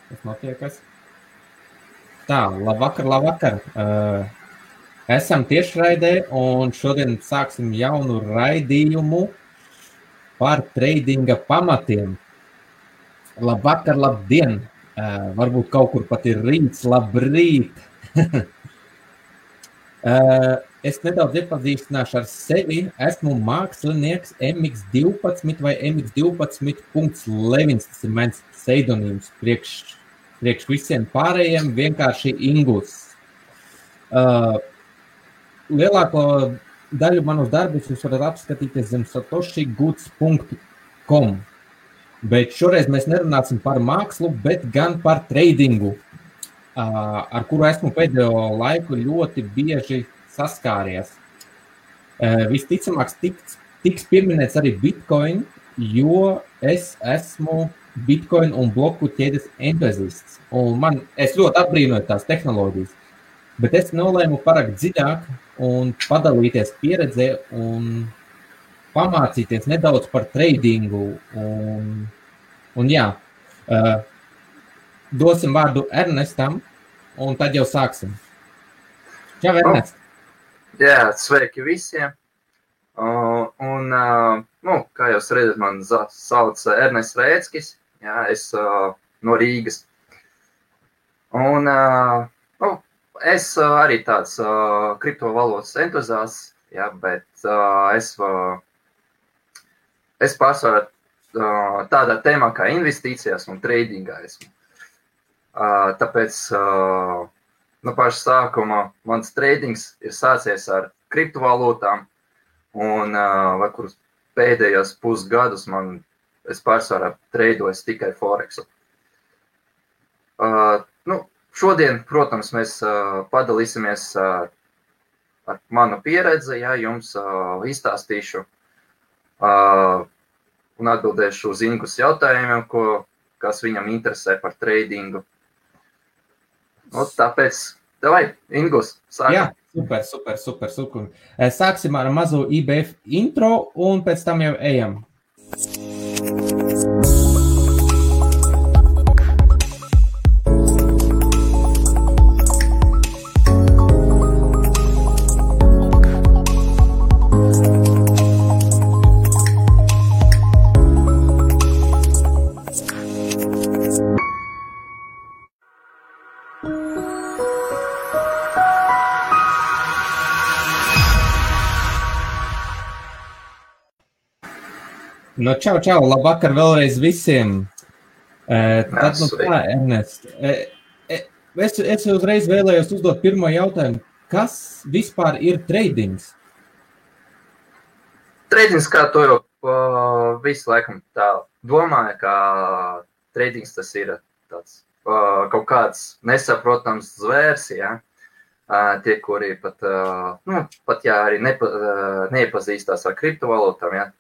Kas notiekas? Tā, labvakar. Esam tiešraidē un šodien sāksim jaunu raidījumu par tradinga pamatiem. Labvakar, labdien! Varbūt kaut kur pat ir rīts, labrīt! Es nedaudz iepazīstināšu ar sevi. Esmu mākslinieks MX12 vai MX12.Levins. Tas ir mans pseidonīms priekš visiem pārējiem, vienkārši Ingus. Lielāko daļu manus darbus jūs varat apskatīties zem satoshigoods.com. Bet šoreiz mēs nerunāsim par mākslu, bet gan par tradingu, ar kuru esmu pēdējo laiku ļoti bieži saskāries. Visticamāk tiks pieminēts arī Bitcoin, jo es esmu Bitcoin un bloku ķēdes entuziasts. Es ļoti apbrīnoju tās tehnoloģijas, bet es nolēmu parakt dziļāk un padalīties pieredzē un pamācīties nedaudz par tradingu. Un jā, dosim vārdu Ernestam, un tad jau sāksim. Čau, Ernest! Jā, sveiki visiem! Kā jūs redzat, man sauc Ernests Rēckis, jā, es no Rīgas. Es arī tāds kriptovalūtas entuziasts, jā, bet es pārsvarā tādā tēmā kā investīcijās un tradingā esmu. Tāpēc no paša sākuma mans tradings ir sācies ar kriptovalūtām, un kurus pēdējos pusgadus es pārsvarā treidoju tikai Forexu. Šodien, protams, mēs padalīsimies ar manu pieredzi, ja jums izstāstīšu un atbildēšu uz Ingus jautājumiem, kas viņam interesē par tradingu. Tāpēc, davai, Ingus, sākam. Jā, super. Sāksim ar mazu IBF intro un pēc tam jau ejam. Čau, labvakar vēlreiz visiem. Tad, tā, Ernest, es uzreiz vēlējos uzdot pirmo jautājumu. Kas vispār ir tradings? Tradings, kā to jau visu laikam tā domāju, ka tradings tas ir tāds kaut kāds nesaprotams zvērs, ja? Tie, kuri pat jā, arī neiepazīstās ar kriptovalūtām, ja?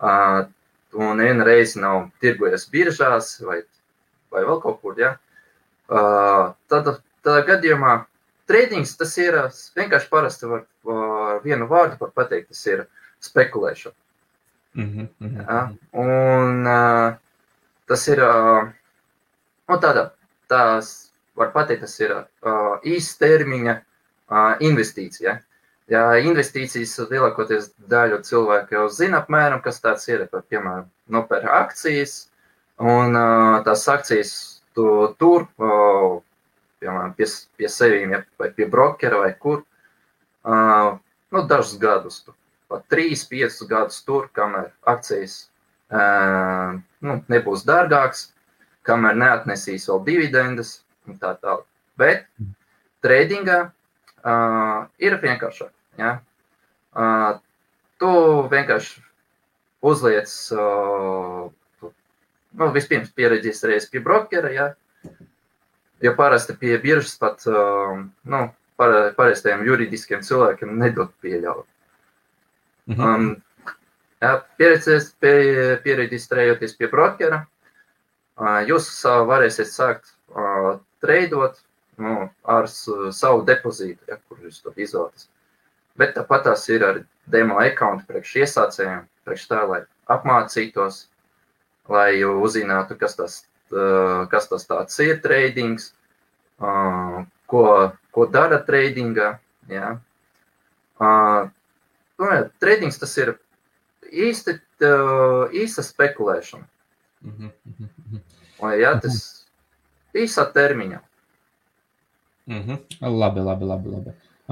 Un viena reize nav tirgojies biržās vai vēl kaut kur, ja? Tādā gadījumā tradings tas ir vienkārši parasti var vienu vārdu var pateikt, tas ir spekulēšana. Ja? Un tas ir, tās var pateikt, tas ir īstermiņa investīcija. Ja investīcijas lielākoties daļu cilvēku jau zina apmēram, kas tāds ir, piemēram, nopēr akcijas, un tās akcijas tu tur, piemēram, pie sevīm, ja, vai pie brokera vai kur, dažus gadus, pat 3-5 gadus tur, kamēr akcijas nebūs dārgāks, kamēr neatnesīs vēl dividendes un tā tālāk. Bet tradingā ir vienkāršāk. Ja? Tu vienkārši uzliec, vispirms piereģistrējies pie brokera, ja? Jo parasti pie biržas pat parastajiem juridiskiem cilvēkiem nedod pieļaut. Piereģistrējoties pie brokera, jūs varēsiet sākt treidot ar savu depozītu, ja, kur jūs to izvēlaties. Bet tāpat tās ir ar demo accounti priekš iesācējiem, priekš tā, lai apmācītos, lai uzzinātu, kas tas kas tas tāds ir tradings, ko dara tradingā. Ja. Tradings tas ir īsta spekulēšana. Ja, tas īsā termiņā. Labi.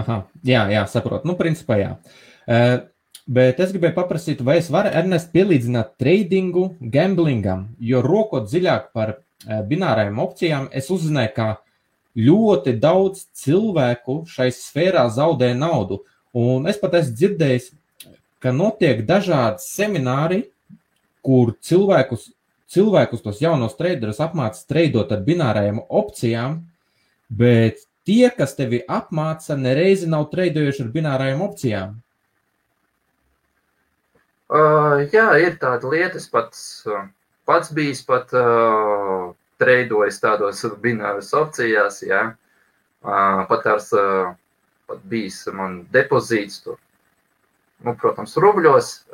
Aha, jā, saprotu. Nu, principā jā. Bet es gribēju paprasīt, vai es varu, Ernest, pielīdzināt tradingu gamblingam, jo rokot dziļāk par binārajām opcijām, es uzzināju, ka ļoti daudz cilvēku šai sfērā zaudē naudu. Un es pat esmu dzirdējis, ka notiek dažādi semināri, kur cilvēkus tos jaunos traderus apmāca treidot ar binārajām opcijām, bet tie, kas tevi apmāca, nereizi nav treidojuši ar binārajām opcijām. Jā, ir tāda lieta, es pats bijis pat treidojis tādos bināras opcijās, jā. Pat bijis man depozīts tur, nu, protams, rubļos,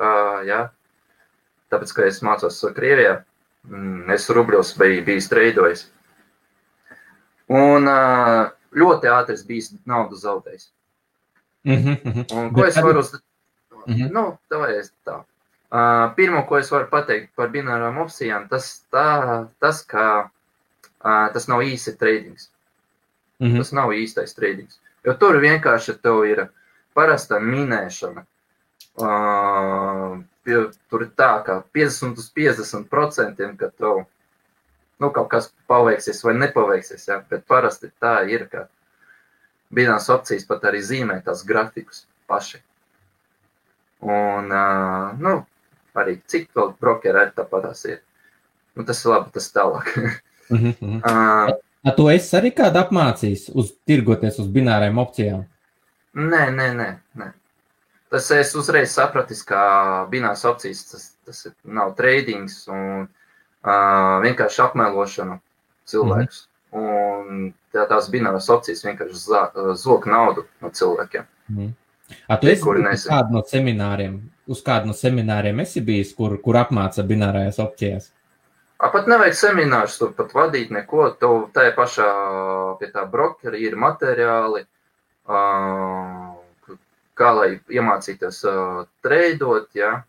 jā. Tāpēc, ka es mācos Krievijā, es rubļos bijis treidojis. Un ļoti ātri es bijis naudu zaudējis. Un ko es varu Nu, tā. Pirmo, ko es varu pateikt par binārām opcijām, tas, ka tas nav īsti tradings. Tas nav īstais tradings. Jo tur vienkārši tev ir parasta minēšana. Tur ir tā, ka 50% ka tev kaut kas paveiksies vai nepaveiksies, ja? Bet parasti tā ir, ka binārās opcijas pat arī zīmē tās grafikus paši. Un, arī cik vēl brokeri arī tāpatās ir. Nu, tas ir labi, tas tālāk. Tu esi arī kādu apmācījis tirgoties uz binārajām opcijām? Nē. Tas es uzreiz sapratis, ka binārās opcijas tas nav tradings un vienkārši apmelošana cilvēkus. Un tās binārās opcijas vienkārši zog naudu no cilvēkiem. Tu esi uz kādu no semināriem esi bijis, kur apmāca binārajās opcijās? Pat nevajag seminārus, tur pat vadīt neko. Tev tajā pašā pie tā brokeri ir materiāli, kā lai iemācīties treidot, ja?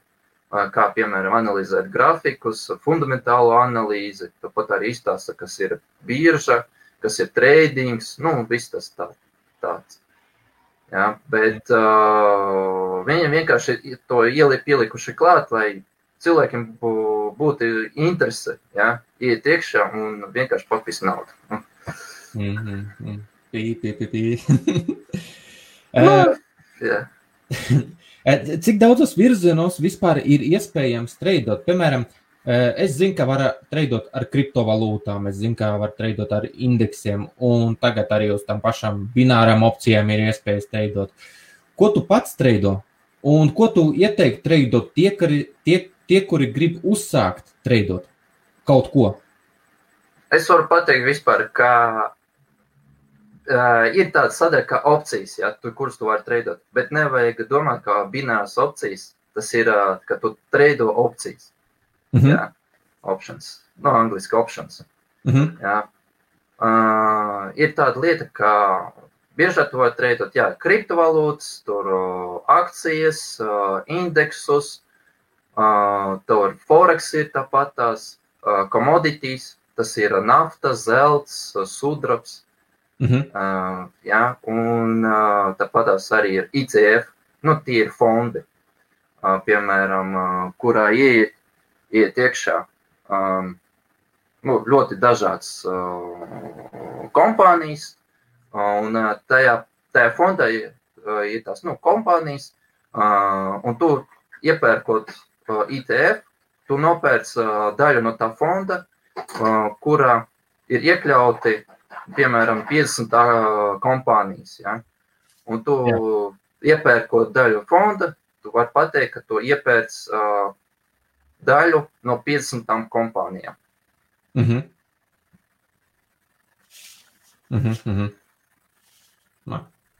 Kā, piemēram, analizēt grafikus, fundamentālo analīzi, tāpat arī izstāsta, kas ir birža, kas ir tradings, viss tas tāds. Ja, bet viņiem vienkārši to pielikuši klāt, lai cilvēkiem būtu interese, ja, iet iekšā un vienkārši papist naudu. Jā. Cik daudzos virzienos vispār ir iespējams treidot? Piemēram, es zinu, ka var treidot ar kriptovalūtām, es zinu, ka var treidot ar indeksiem, un tagad arī uz tām pašām binārām opcijām ir iespējas treidot. Ko tu pats treido? Un ko tu ieteiktu treidot tie, kuri grib uzsākt treidot kaut ko? Es varu pateikt vispār, ka ir tāda sadaļa kā opcijas, ja, kuras tu vari treidot, bet nevajag domāt, ka binārās opcijas, tas ir, ka tu treido opcijas. Jā, options. Angliski options. Jā. Ir tāda lieta, ka biežāk tu vari treidot, jā, kriptovalūtas, tur akcijas, indeksus, tur forex ir tāpatās, commodities, tas ir nafta, zelts, sudrabs. Jā, un tāpatās arī ir ICF, tie ir fondi, piemēram, kurā iet iekšā ļoti dažādas kompānijas, un tajā fondā ir tās kompānijas, un tu iepērkot ITF, tu nopērc daļu no tā fonda, kurā ir iekļauti, piemēram, 50 kompānijas. Ja? Un tu iepērkot daļu fonda, tu vari pateikt, ka tu iepērc daļu no 50 kompānijām.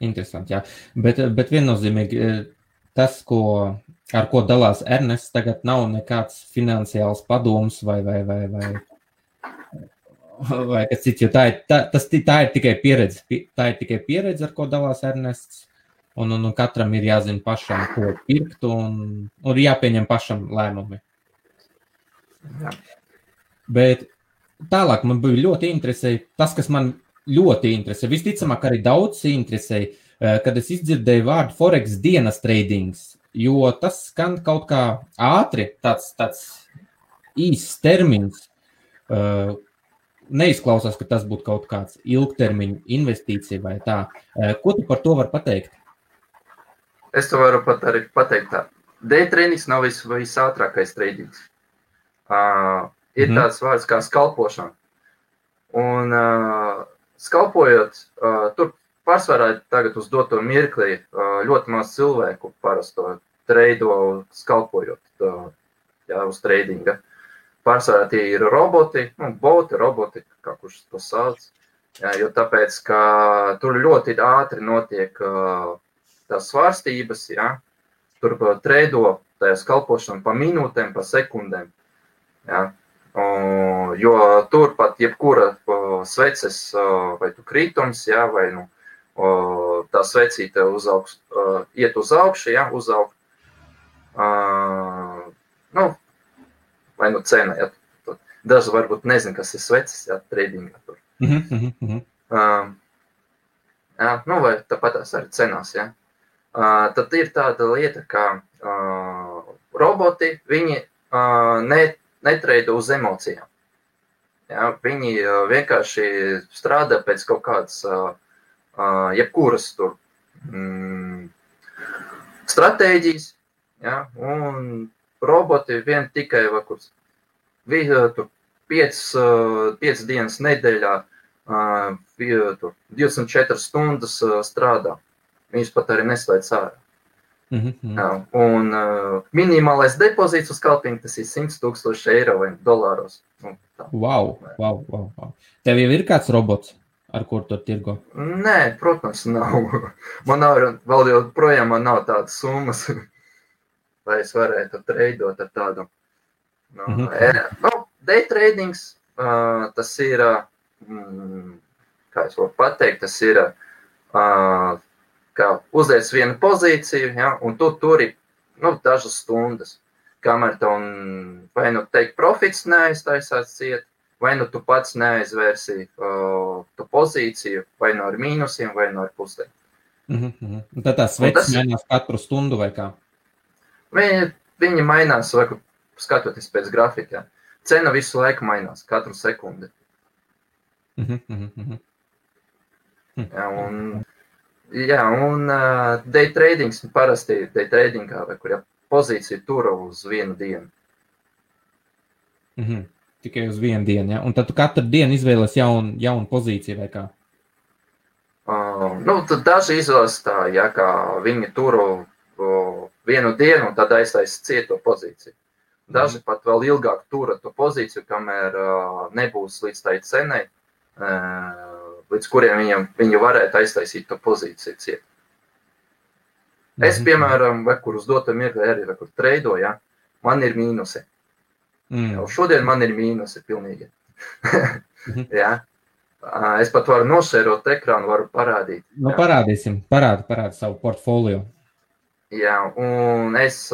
Interesanti, jā. Bet viennozīmīgi tas, ar ko dalās Ernests, tagad nav nekāds finansiāls padoms vai vai kas cits, jo tā ir tikai pieredze. Tā ir tikai pieredze, ar ko dalās Ernests. Un katram ir jāzina pašam, ko pirkt, un jāpieņem pašam lēmumi. Jā. Bet tālāk man bija ļoti interesēja, tas, kas man ļoti interesē, visticamāk arī daudz interesēja, kad es izdzirdēju vārdu Forex dienas tradings, jo tas skan kaut kā ātri, tāds īsts termins, neizklausās, ka tas būtu kaut kāds ilgtermiņa investīcija vai tā. Ko tu par to var pateikt? Es to varu pat arī pateikt tā. Day tradings nav visātrākais tradings. Ir tāds vārds kā skalpošana. Un skalpojot, tur pārsvarā tagad uz doto mirklī ļoti maz cilvēku parasto treido skalpojot uz tradinga. Pārsvarā tie ir roboti, roboti, kā kurš to sauc. Jo tāpēc, ka tur ļoti ātri notiek tās svārstības, tur treido tajā skalpošana pa minūtēm, pa sekundēm. Jo tur pat jebkura sveces vai tu krītums, vai tā svecīte iet uz augšu, uzaugt. Vai cena, daži varbūt nezin, kas ir sveces, tradingā tur. Vai tāpat tās arī cenās, Tad ir tāda lieta, ka roboti, viņi netreido uz emocijām. Viņi vienkārši strādā pēc kaut kādas jebkuras tur stratēģijas, un roboti vien tikai tur 5 dienas nedēļā 24 stundas strādā. Viņš pat arī neslēdz ārā. Un minimālais depozīts uz kalpiņu, tas ir 100,000 eiro vai dolāros. Wow. Tev jau ir kāds robots, ar kur tu tirgo? Nē, protams, nav. Man vēl joprojām nav tādas summas, lai es varētu treidot ar tādu. Day tradings, tas ir, kā es varu pateikt, tas ir, kā uzliec vienu pozīciju, un tu turi dažas stundas, kamēr tev vai teikt profits neaiztaisās ciet, vai tu pats neaizvērsi tu pozīciju, vai ar mīnusiem, vai ar pusēm. Un tad tās sveces mainās katru stundu vai kā? Viņi mainās, skatoties pēc grafika. Cena visu laiku mainās, katru sekundi. Un day tradings parasti day tradingā, vai kur pozīcija tura uz vienu dienu. Tikai uz vienu dienu, Un tad tu katru dienu izvēlies jaunu pozīciju vai kā? Tad daži izvēlas tā, kā viņi turu vienu dienu un tad aiztaisa cieto pozīciju. Daži pat vēl ilgāk tura to pozīciju, kamēr nebūs līdz tai cenai, līdz kuriem viņi varētu aiztaisīt to pozīciju ciet. Es, piemēram, kur uz doto mirkli arī treido, man ir mīnusi. Šodien man ir mīnusi pilnīgi. Es pat varu nošērot ekrānu, varu parādīt. Parādīsim, parādi savu portfolio. Un es,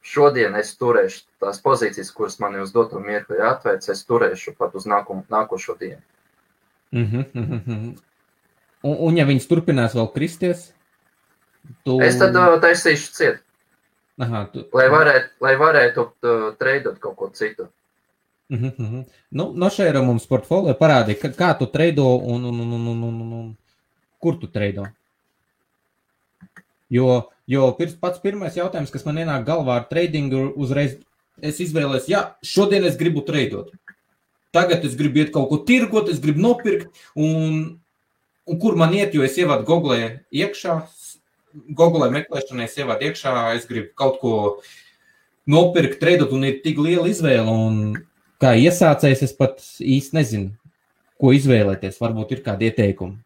šodien es turēšu tās pozīcijas, kuras man uz doto mirkli atvērts, es turēšu pat uz nākošo dienu. Un ja viņas turpinās vēl kristies? Es tad taisīšu ciet. Lai varētu treidot kaut ko citu. Nošēra mums portfolio parādi, kā tu treido un kur tu treido? Jo pats pirmais jautājums, kas man ienāk galvā ar tradingu, uzreiz es izvēlēs, šodien es gribu treidot. Tagad es gribu iet kaut ko tirgot, es gribu nopirkt, un kur man iet, jo es ievādu Google iekšā, Google meklēšanai es ievādu iekšā, es gribu kaut ko nopirkt, treidot, un ir tik liela izvēle, un kā iesācējs es pat īsti nezinu, ko izvēlēties, varbūt ir kādi ieteikumi.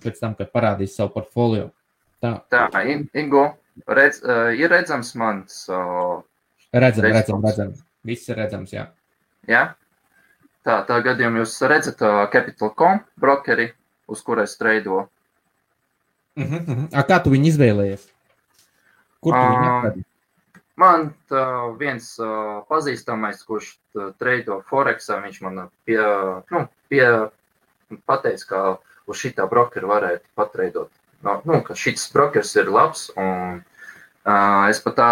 Pēc tam, kad parādīs savu portfolio. Tā, Ingo, ir redzams mans... Redzam. Viss ir redzams, jā. Tā gadījumā jūs redzat Capital.com brokeri, uz kur es treido. Kā tu viņu izvēlējies? Kur tu viņu atradi? Man viens pazīstamais, kurš treido Forexā, viņš man pateica, ka uz šitā brokeru varētu patreidot. Ka šis brokers ir labs, un es pat tā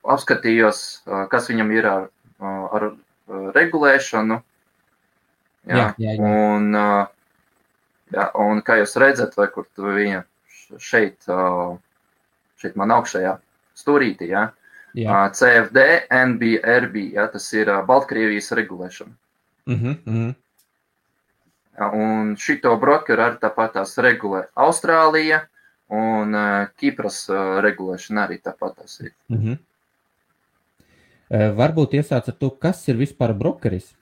apskatījos, kas viņam ir ar regulēšanu. Jā. Un kā jūs redzat, vai kur tu viņa šeit man augšējā stūrītī, ja? CFD, NBRB, ja? Tas ir Baltkrievijas regulēšana. Un šito brokeru arī tāpat tās regulē Austrālija, un Kipras regulēšana arī tāpat tās ir. Varbūt iesāc ar to, kas ir vispār brokeris?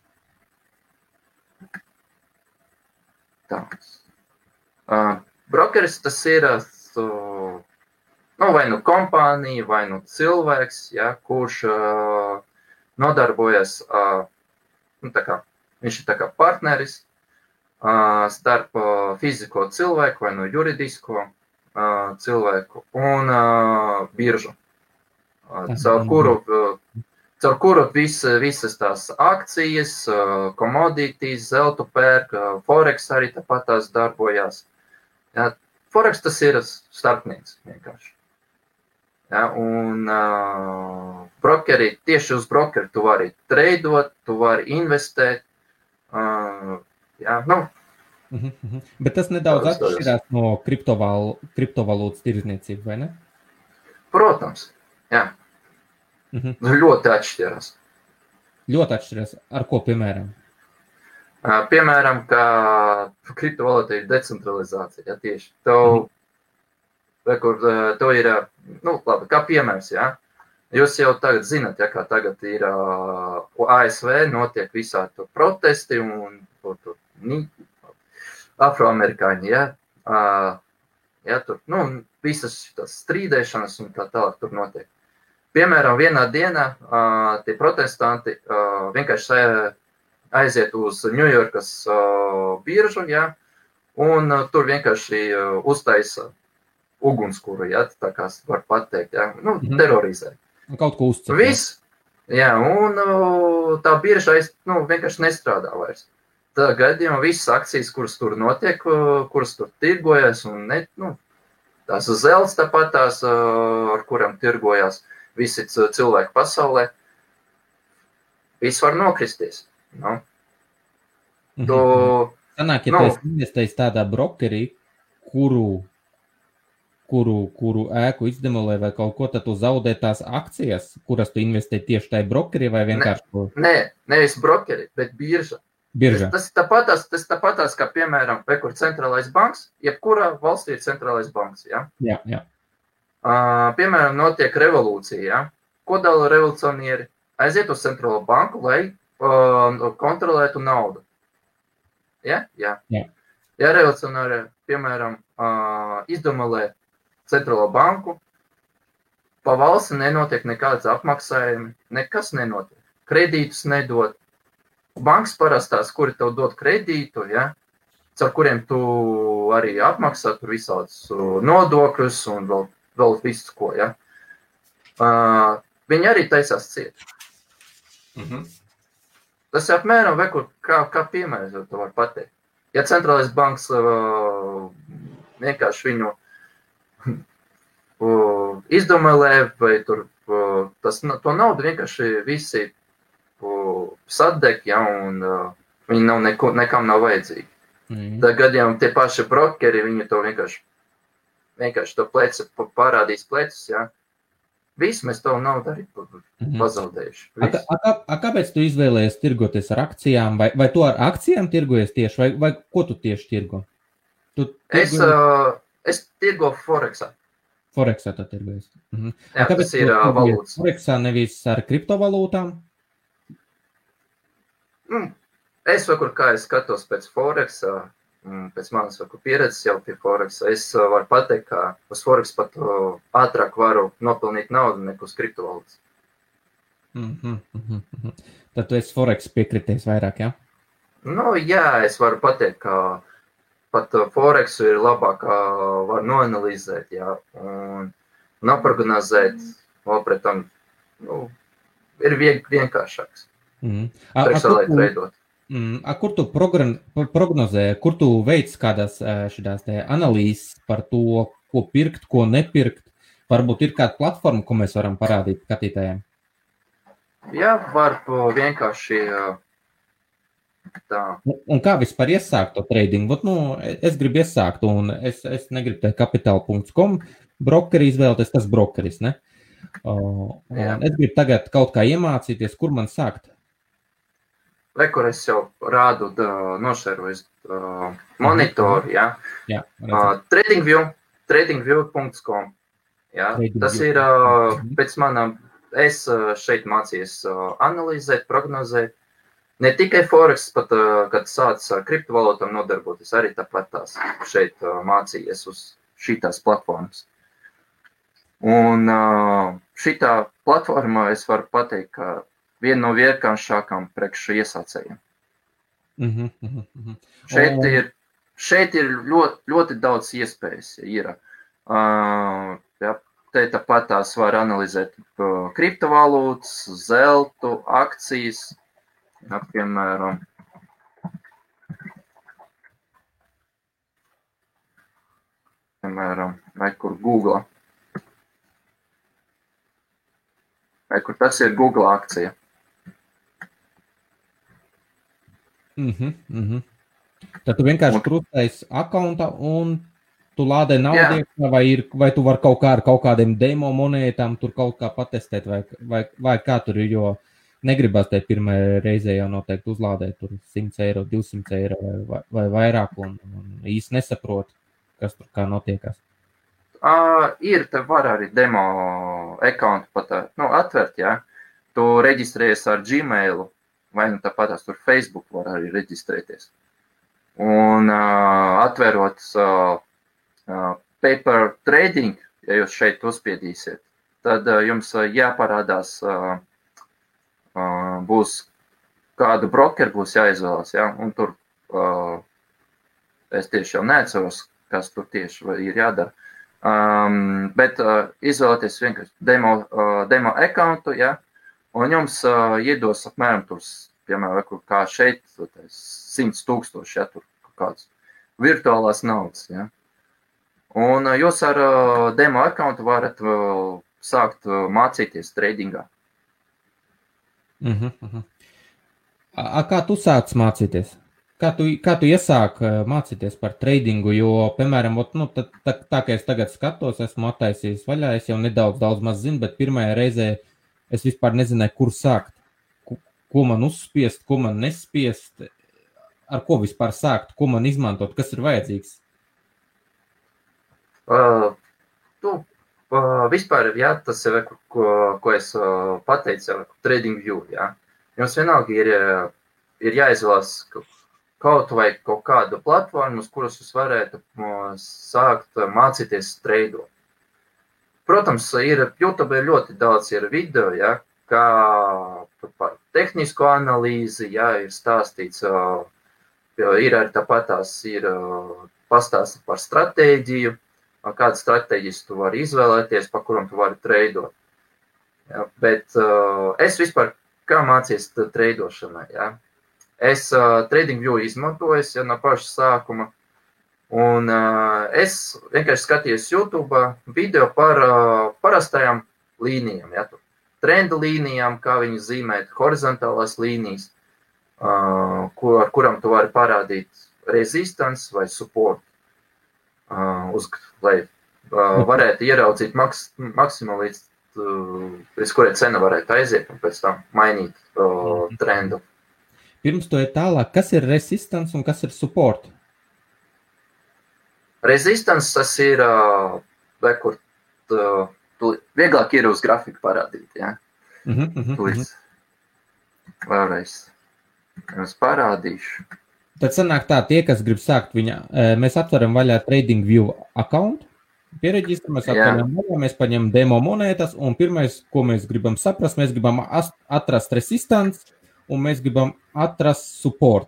Brokeris tas ir vai nu kompānija, vai nu cilvēks, ja, kurš nodarbojas, viņš ir tā kā partneris starp fizisko cilvēku vai nu juridisko cilvēku un biržu, caur kuru visas tās akcijas, commodities, zeltu pērk, Forex arī tāpat tās darbojās. Ja, Forex tas ir starpnieks vienkārši. Ja, un brokeri, tieši uz brokeri tu vari treidot, tu vari investēt. Bet tas nedaudz atšķirās no kriptovalūtas tirdzniecību, vai ne? Protams, jā. Ļoti atšķirās. Ļoti atšķirās. Ar ko, piemēram? Piemēram, ka kriptovalūta ir decentralizācija, ja, tieši. To ir, labi, kā piemērs, ja. Jūs jau tagad zināt, ja, kā tagad ir ASV, notiek visādi tur protesti un afroamerikāņi, ja. Ja, tur, visas tās strīdēšanas un tā tālāk tur notiek. Piemēram, vienā dienā tie protestanti vienkārši aiziet uz Ņujorkas biržu, ja, un tur vienkārši uztaisa ugunskura, ja, tā kā var pateikt, ja, terorizē. Kaut ko uzcep. Viss, jā, un tā birža vienkārši nestrādā vairs. Tā gadījumā visas akcijas, kuras tur notiek, kuras tur tirgojas, un tās zelts tāpat tās, ar kurām tirgojas visi cilvēki pasaulē, viss var nokristies. Sanāk, ja tu esi investējis tādā brokerī, kuru ēku izdemolē vai kaut ko, tad tu zaudē tās akcijas, kuras tu investē tieši tajā brokerī vai vienkārši? Nē, nevis brokeri, bet birža. Birža. Tas tāpatās, kā piemēram, kur centrālais banks, jebkurā valstī ir centrālais banks, ja? Jā. Piemēram, notiek revolūcija, ja? Ko dala revolucionieri? Aiziet uz centrālo banku, lai kontrolētu naudu. Ja? Jā. Ja revolucionieri, piemēram, izdemolē centrālo banku, pa valsti nenotiek nekādas apmaksājumi, nekas nenotiek. Kredītus nedod. Bankas parastās, kuri tev dod kredītu, ja, caur kuriem tu arī apmaksā tur visādus nodokļus un vēl visu ko, ja. Viņi arī taisās ciet. Tas apmēram kā piemērs, tu var pateikt. Ja centrālais banks vienkārši viņu izdomēlē, vai tur to naudu vienkārši visi sadeg, ja, un viņi nekam nav vajadzīgi. Tā gadījumā tie paši brokeri, viņi to vienkārši to pleci parādīs plecus, ja. Viss mēs to naudu arī pazaudējuši. Kāpēc tu izvēlējies tirgoties ar akcijām? Vai tu ar akcijām tirgojies tieši, vai ko tu tieši tirgo? Es tirgo Forexā. Forexā tu tirgojies. Jā, tas ir valūtas. Forexā nevis ar kriptovalūtām? Es kā es skatos pēc Forexā, pēc manas pieredzes jau pie Forexa, es varu pateikt, ka uz Forex pat ātrāk varu nopelnīt naudu nekā uz kriptovalūtas. Tad tu esi Forex piekritējis vairāk, jā? Nu, jā, es varu pateikt, ka pat Forexu ir labāk var noanalizēt, jā, un noprognozēt, vēl pret tam, ir vienkāršāks. Priekšsēlēt veidot. Kur tu prognozē, kur tu veic kādās šitās te analīzes par to, ko pirkt, ko nepirkt? Varbūt ir kāda platforma, ko mēs varam parādīt skatītājiem? Jā, var vienkārši tā. Un kā vispār iesākt to tradingu? Es gribu iesākt, un es negribu te kapital.com brokeri izvēlēties, tas brokeris, ne? Es gribu tagad kaut kā iemācīties, kur man sākt. Kur es jau rādu, nošēroju monitoru, jā. Tradingview.com. Jā, tas ir pēc manām, es šeit mācījos analizēt, prognozēt. Ne tikai Forex, pat, kad sācis ar kriptovalūtām nodarboties, arī tāpat tās šeit mācījies uz šitās platformas. Un šitā platformā es varu pateikt, ka viena no vienkāršākām priekš iesācējiem. Šeit ir ļoti daudz iespējas. Te tāpat tās var analizēt kriptovalūtas, zeltu, akcijas, piemēram. Vai kur Google. Vai kur tas ir Google akcija. Tad tu vienkārši krustais akaunta un tu lādē naudu, vai tu vari kaut kā ar kaut kādiem demo monētām tur kaut kā patestēt, vai kā tur ir, jo negribas te pirmajā reizē jau noteikti uzlādēt tur 100 eiro, 200 eiro vai vairāk un īsti nesaprot, kas tur kā notiekās. Te var arī demo accountu pat atvert, jā. Tu reģistrējies ar Gmailu, vai tāpatās tur Facebook var arī reģistrēties. Un atverot paper trading, ja jūs šeit uzspiedīsiet, tad jums jāparādās, būs kādu brokeru būs jāizvēlas, jā, un tur es tieši jau neatceros, kas tur tieši ir jādara. Bet izvēlēties vienkārši demo accountu, ja, un jums iedos apmēram tur, piemēram, kā šeit, 100,000, ja, tur kāds virtuālās naudas, ja. Un jūs ar demo accountu varat sākt mācīties tradingā. Kā tu sāc mācīties? Kā tu iesāk mācīties par tradingu, jo, piemēram, tā kā es tagad skatos, esmu attaisījis vaļā, es jau daudz maz zinu, bet pirmajā reizē es vispār nezināju, kur sākt, ko man uzspiest, ko man nespiest, ar ko vispār sākt, ko man izmantot, kas ir vajadzīgs. Vispār, jā, tas ir, ko es pateicu, TradingView, jā. Jums vienalga ir jāizvēlas kaut vai kaut kādu platformu, uz kuras jūs varētu sākt mācīties treidot. Protams, YouTube ir ļoti daudz video, ja, kā par tehnisko analīzi, ja, ir stāstīts, ir arī tāpatās ir pastāstīts par stratēģiju, kādas stratēģijas tu vari izvēlēties, pa kuram tu vari treidot. Ja, bet es vispār kā mācījos treidošanai, ja. Es TradingView izmantoju, ja, no paša sākuma, un es vienkārši skatījos YouTube video par parastajām līnijām, ja, trendu līnijām, kā viņu zīmēt, horizontālās līnijas, ar kuram tu vari parādīt resistance vai support, lai varētu ieraudzīt maksimumu, līdz kurai cena varētu aiziet un pēc tam mainīt trendu. Pirms to ir tālāk, kas ir resistance un kas ir support? Resistance tas ir, kur vieglāk ir uz grafiku parādīt, ja? Vēlreiz jums parādīšu. Tad sanāk tā, tie, kas grib sākt mēs atveram vaļā TradingView account, piereģistramies, atveram vaļā, mēs paņem demo monētas, un pirmais, ko mēs gribam saprast, mēs gribam atrast resistance, un mēs gribam atrast support.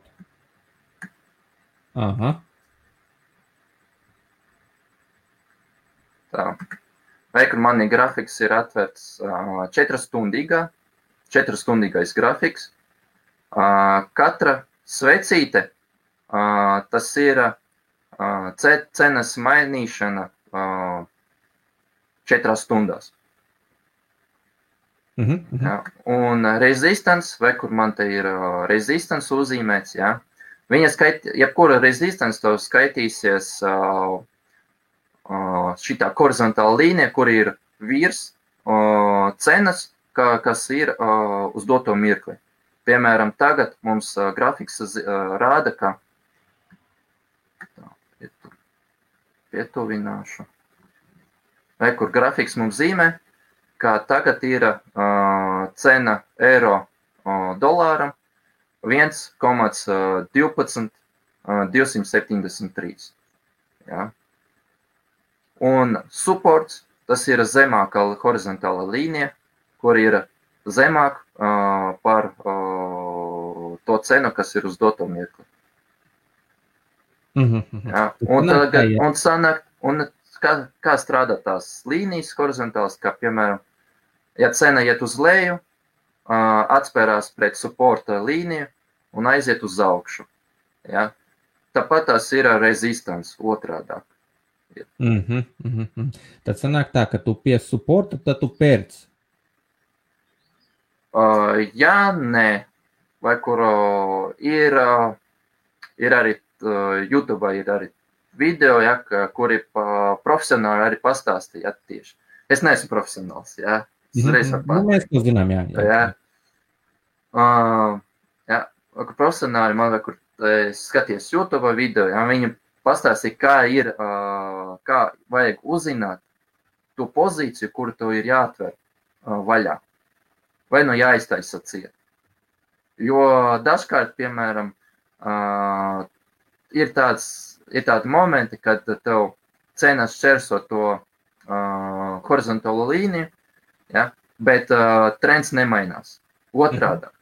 Aha. Tā. Vai, kur man grafiks ir atvērts 4-stundīgais grafiks. Katra svecīte, tas ir cenas mainīšana 4 stundās. Jā. Un resistance, vai kur man te ir resistance uzzīmēts, jā. Jebkura resistance to skaitīsies šitā horizontāla līnija, kur ir virs cenas, kas ir uz doto mirkli. Piemēram, tagad mums grafiks rāda, ka pietuvināšu. Vai, kur grafiks mums zīmē, ka tagad ir cena eiro dolāram 1,12,273. Ja? Un supports, tas ir zemākā horizontāla līnija, kur ir zemāk par to cenu, kas ir uz doto mirkli. Ja? Un kā strādā tās līnijas horizontālas, kā piemēram, ja cena iet uz leju, atspērās pret supporta līniju un aiziet uz augšu. Ja? Tāpat tās ir resistance otrādāk. Tad sanāk tā, ka tu pie supporta, tad tu pērc. Jā, nē. Vai kur ir arī YouTube ir arī video, ja, kuri profesionāli arī pastāstīja tieši. Es neesmu profesionāls, jā. Mēs to zinām, jā. Jā, profesionāli man, kur skaties YouTube video, jā, viņi pastāstīja, kā vajag uzzināt to pozīciju, kuru tev ir jāatver vaļā. Vai nu jāiztaisa ciet. Jo dažkārt, piemēram, ir tādi momenti, kad tev cenas šķērso to horizontālo līniju, ja, bet trends nemainās. Otrādāk.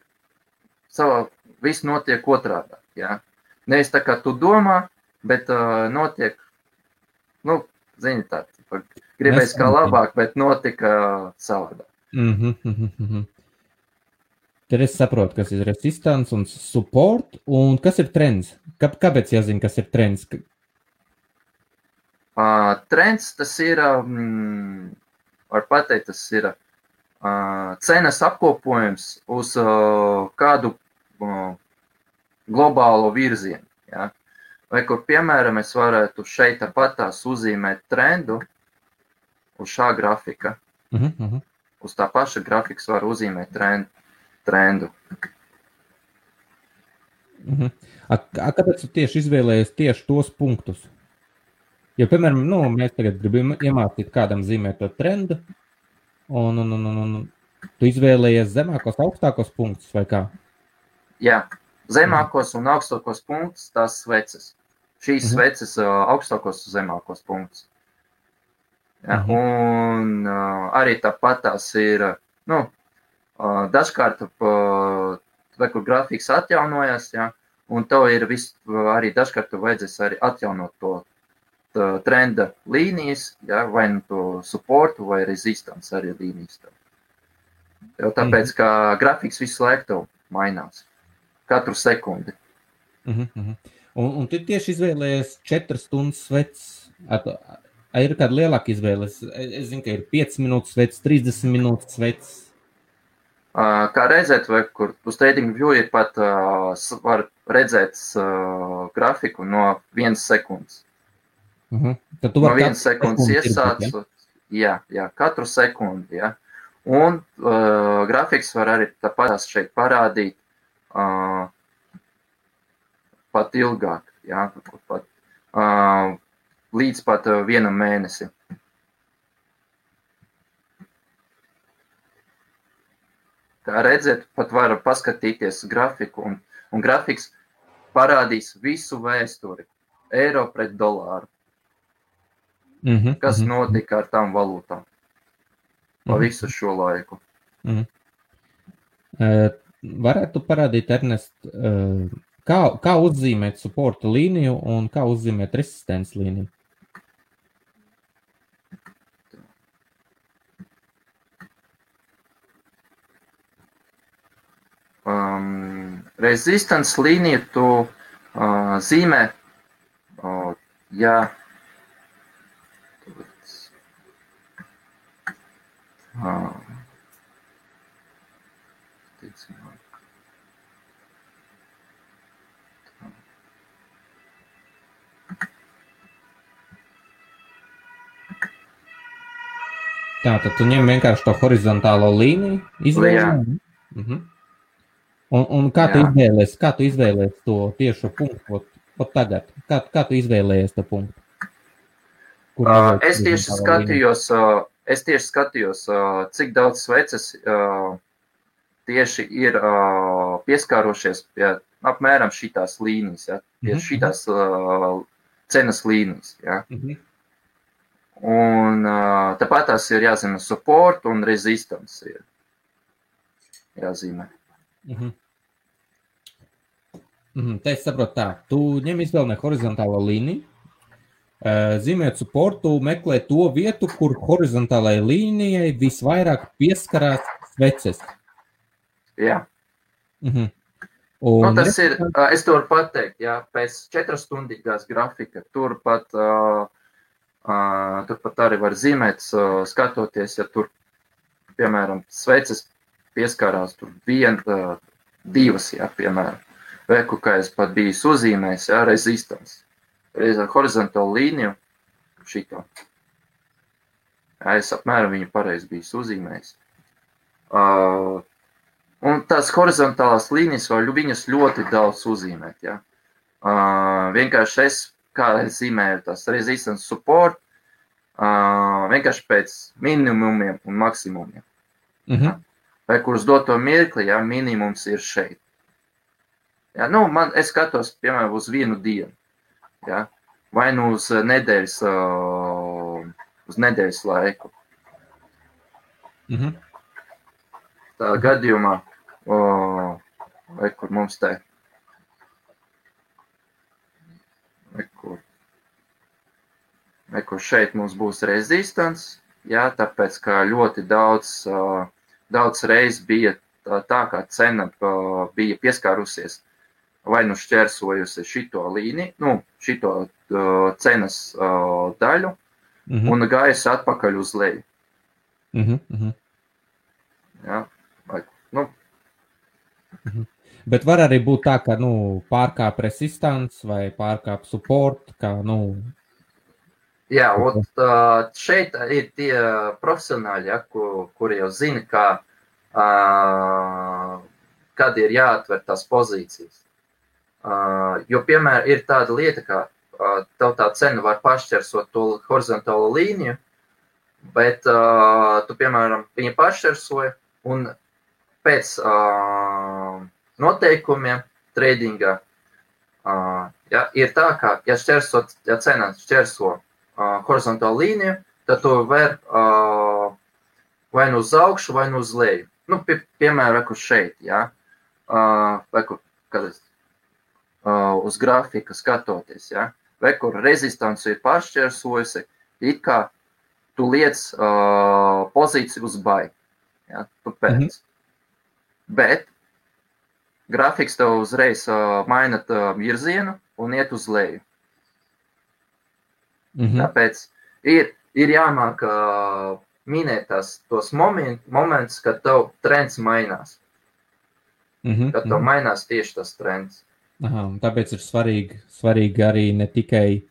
Viss notiek otrādāk. Ja. Nevis tā, kā tu domā, bet notiek, zini tā, gribēs kā labāk, bet notika savādāk. Tad es saprotu, kas ir resistance un support, un kas ir trends? Kāpēc jāzina, kas ir trends? Trends, tas ir, var pateikt, tas ir cenas apkopojums uz kādu globālo virzienu. Ja? Vai kur, piemēram, es varētu šeit tāpatās uzzīmēt trendu uz šā grafika. Uz tā paša grafikas var uzzīmēt trendu. Kāpēc tu tieši izvēlējies tieši tos punktus? Jo, piemēram, mēs tagad gribam iemācīt kādam zīmēt to trendu, un tu izvēlējies zemākos, augstākos punktus, vai kā? Jā, zemākos un augstākos punktus, tās sveces. Šīs sveces augstākos un zemākos punktus. Ja, un arī tāpat tās ir, dažkārt, vai kur grafiks atjaunojas, ja, un tev ir arī dažkārt tu vajadzēs arī atjaunot to trenda līnijas, ja, vai nu to supportu vai resistance arī līnijas. Jo tāpēc, ka grafiks visu laiku tev mainās. Katru sekundi. Un tu tieši izvēlējies 4 stundas sveces. Ir kāda lielāka izvēle? Es zinu, ka ir 5 minūtes sveces, 30 minūtes sveces. Kā redzēt, vai kur uz TradingView ir pat var redzēt grafiku no 1 sekundes. Tad tu no 1 sekundes iesāc. Ja? Jā, katru sekundi. Ja? Un grafiks var arī tāpat šeit parādīt pat ilgāk. Ja? Līdz pat 1 mēnesi. Kā redzēt, pat var paskatīties grafiku, un grafiks parādīs visu vēsturi. Eiro pret dolāru. Kas notika ar tām valūtām pa visu šo laiku. Varētu parādīt, Ernest, Kā uzzīmēt supporta līniju un kā uzzīmēt resistences līniju? Resistance līniju tu zīmē, ja Tātad tu ņem vienkārši to horizontālo līniju, izvēlē. Un kā tu izvēlējies to tiešu punktu tagad? Kā tu izvēlējies to punktu? Es tieši skatījos, cik daudz sveces tieši ir pieskārošies pie apmēram šitās līnijas, ja? Pie šitās cenas līnijas. Ja? Un tāpat tās ir jāzīmē support un resistance ir jāzīmē. Te es saprotu tā, tu ņem izvēlē horizontālo līniju, zīmēt supportu, meklē to vietu, kur horizontālajai līnijai visvairāk pieskarās sveces. Jā. Un tas ir, es to varu pateikt, jā, pēc 4-stundīgās grafika, turpat arī var zīmēt, skatoties, ja tur, piemēram, sveces pieskārās tur 1, 2, jā, piemēram. Veku, kā es pat biju uzzīmējis, jā, resistance. Reiz ar horizontālu līniju šito. Jā, es apmēram viņu pareizi biju uzzīmējis. Un tās horizontālās līnijas var viņas ļoti daudz uzzīmēt, jā. Vienkārši kā es zīmēju tās resistance support, vienkārši pēc minimumiem un maksimumiem. Vai kurus doto mirkli, jā, minimums ir šeit. Jā, es skatos, piemēram, uz 1 dienu, jā, vai uz nedēļas laiku. Tā gadījumā, vai kur mums te, vai kur šeit mums būs resistance, jā, tāpēc, ka ļoti daudz reiz bija tā, kā cena bija pieskārusies, vai šķērsojusi šito līniju, šito cenas daļu, un gājusi atpakaļ uz leju. Jā, Bet var arī būt tā, ka, pārkāp resistance vai pārkāp support, kā, Jā, un šeit ir tie profesionāļi, ja, kuri jau zina, kad ir jāatver tās pozīcijas. Jo, piemēram, ir tāda lieta, ka tev tā cena var pašķersot to horizontālo līniju, bet tu, piemēram, viņa pašķersoja un pēc noteikumiem tradingā ir tā, ka, ja cena šķerso horizontālu līniju, tad tu var vai uz augšu, vai uz leju. Piemēram, šeit, ja, uz grafika skatoties, ja, vai kur rezistance ir pašķersojusi, it kā tu liec pozīciju uz buy, ja, tu pēc. Bet grafiks tev uzreiz maina virzienu un iet uz leju. Tāpēc ir jāmāk minēt tos momentus, kad tev trends mainās. Kad tev mainās tieši tas trends. Tāpēc ir svarīgi arī ne tikai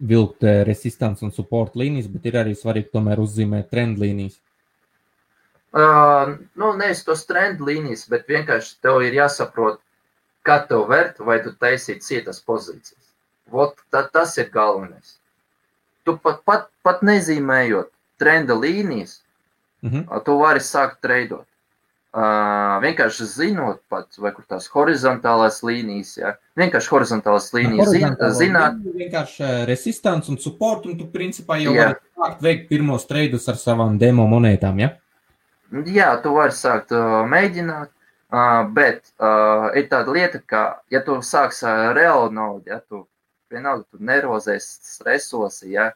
vilkt resistance un support līnijas, bet ir arī svarīgi tomēr uzzīmēt trend līnijas. Nevis tos trend līnijas, bet vienkārši tev ir jāsaprot, kā tev vērt, vai tu taisīt cietas pozīcijas. Tas ir galvenais. Tu pat nezīmējot trenda līnijas, tu vari sākt treidot. Vienkārši zinot pat, vai kur tās horizontālās līnijas, ja? Vienkārši horizontālās līnijas zināt. Vienkārši resistance un support, un tu principā jau vari sākt veikt pirmos treidus ar savām demo monētām, ja? Jā, tu vari sākt mēģināt. Bet ir tāda lieta, ka, ja tu sāks reālu naudu, ja tu vienalga, tu nervozēs, stresosi, ja,